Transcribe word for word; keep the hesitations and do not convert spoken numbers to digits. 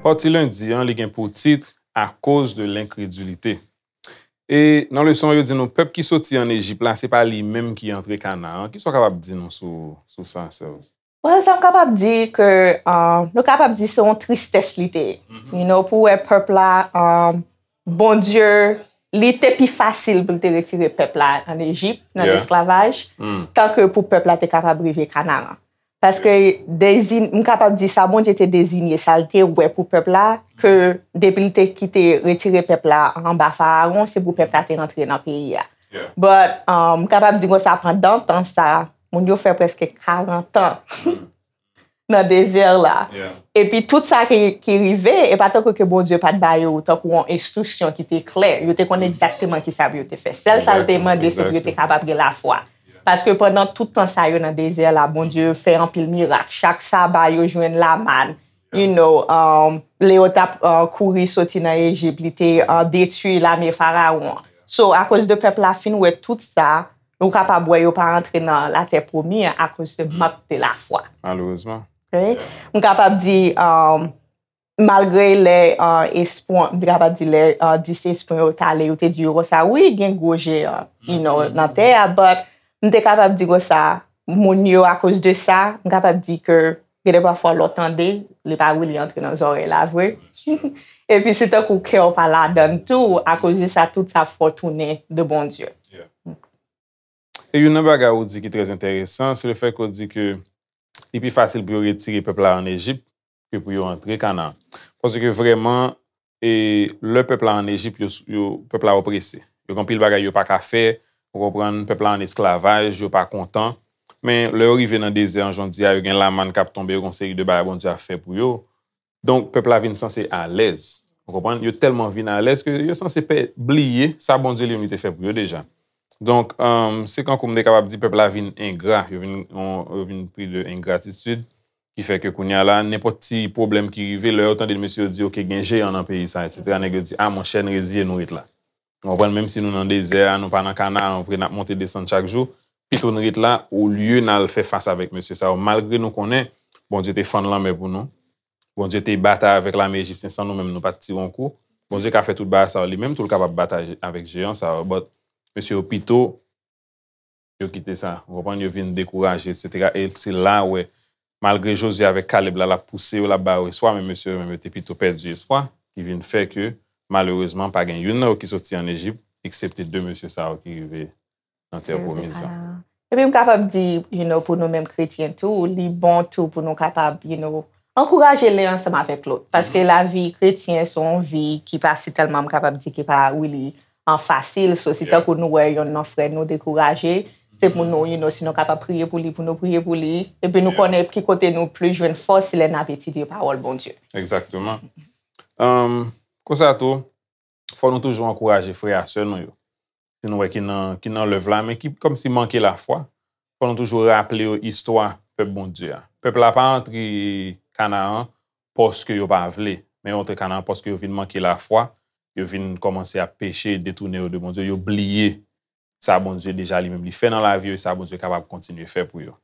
Pati lendi an, li gen pou tit Akoz de lenkredilite. E nan leson an, yo di nou pèp ki soti ann Ejip la, se pa li menm ki antre Kanaan. Kisa w kapab di nou sou, sou sa, Serge? Well, sa m kapab di ke uh, nou kapab di se yon tristès li te ye. You know, pou wè pèp la, um, Bondye, li te pi fasil pou l te retire pèp la ann Ejip, nan Yeah. lesklavaj, Mm. tanke pou pèp la te kapab rive Kanaan. Paske dezi- m kapab di sa Bondye te dezinye, sa l te wè pou pèp la, ke depi l te kite retire pèp la anba Farawon, se pou pèp la te rantre nan peyi a. Yeah. But, um, m kapab di konsa, pandan tan sa, moun yo fè prèske karant an nan dezè la. Yeah. Epi tout sa ki, ki rive, e pa tankou ke Bondye pa t ba yo tankou yon enstriksyon ki te klè. Yo te konn egzakteman ki sa pou yo te fè. Sèl sa l te Exactly, mande, se pou yo te exactly. Kapab gen lafwa. Paske pandan tout tan sa yo nan dezè la, Bondye fè anpil mirak. Chak saba, yo jwenn lamann. You know, um, lè yo t ap uh, kouri soti nan Ejip, li te uh, detwi lame Farawon. So, akoz de pèp la fin wè tout sa, nou kapab wè yo pa antre nan latè pwomi an akoz de mank de lafwa. Malerezman. Ok? M kapab di, um, malgre lè uh, espyon, m te kapab di lè uh, dis espyon yo t ale, yo te di yo konsa, wi, gen gwo jeyan, you know, nan tè a, but m te kapab di konsa, moun yo akoz de sa, m kapab di ke gen de pafwa lè w tande, li pa really antre nan zòrèy la vre. Epi se tankou kè w pa ladann tou, akoz de sa, tout sa fè w tounen de Bondye. E youn nan bagay ou di ki trè enteresan, se le fè ke w di ke li pi fasil pou yo retire pèp la ann Ejip ke pou yo antre Kanaan. Paske vrèman, e, lè pèp la ann Ejip, yo, yo, pèp la oprese. Yo gen anpil bagay yo pa ka fè, ou konprann, pèp la ann esklavaj, yo pa kontan. Men lè yo rive nan dezè an, jan w di a, yo gen lamann k ap tonbe, yo gen yon seri de bagay Bondye ap fè pou yo. Donk, pèp la vin sanse alèz. Ou konprann? Yo tèlman vin alèz ke yo sanse pè, bliye sa Bondye li menm li te fè pou yo deja. Donk, um, se kankou m te kapab di pèp la vin engra, yo vin, yo vin pri de engratitid, ki fè ke kounye a la, nenpòt ti pwoblèm ki rive, lè yo tande mesye yo di, oke, gen jeyan nan peyi sa, etsetera, nèg yo di, a monchè, n reziye nou ret la. Ou konprann, menm si nou nan dezè a, nou pa nan Kanaan, vre, n ap monte desann chak jou, pito n ret la, olye n al fè fas avèk mesye sa yo, malgre nou konnen, Bondye te fann lanmè pou nou, Bondye te batay avèk lame ejipsyen san nou menm, nou pa t tire yon kou. Bondye ka fè tout bagay sa yo, li menm tou l kapab batay avèk jeyan sa yo, but mesye yo pito yo kite sa, ou konprann, yo vin dekouraje, etsetera. E se la ou wè, malgre Jozye avèk Kalèb la, l ap pouse yo, l ap ba yo espwa, men mesye yo menm yo te pito pèdi espwa, ki vin fè ke, malerezman, pa gen youn nan yo ki soti ann Ejip, eksepte de mesye sa yo ki rive nan tè pwomiz la. Epi m kapab di, you know, pou nou menm kretyen tou, li bon tou pou nou kapab, you know, ankouraje len ansanm avèk lòt. Paske lavi kretyen se yon vi ki pa si tèlman, m kapab di, ki pa really an fasil. So, si tankou nou wè yonn nan frè nou dekouraje, se pou nou, you know, si nou kapab priye pou li, pou nou priye pou li. Epi nou konnen ki kote nou plis jwenn fòs, se lè n ap etidye pawòl Bondye. Egzakteman. Um, konsa tou, fò nou toujou ankouraje frè a sè nou yo. Si nou wè ki nan, ki nan lèv la, men ki kòmsi manke lafwa, fò nou toujou raple yo istwa pèp Bondye a. Pèp la pa antre Kanaan paske yo pa vle, men yo antre Kanaan paske yo vin manke lafwa, yo vin kòmanse ap peche, detounen yo de Bondye, yo bliye sa Bondye deja li menm li fè nan lavi yo e sa Bondye kapab kontinye fè pou yo.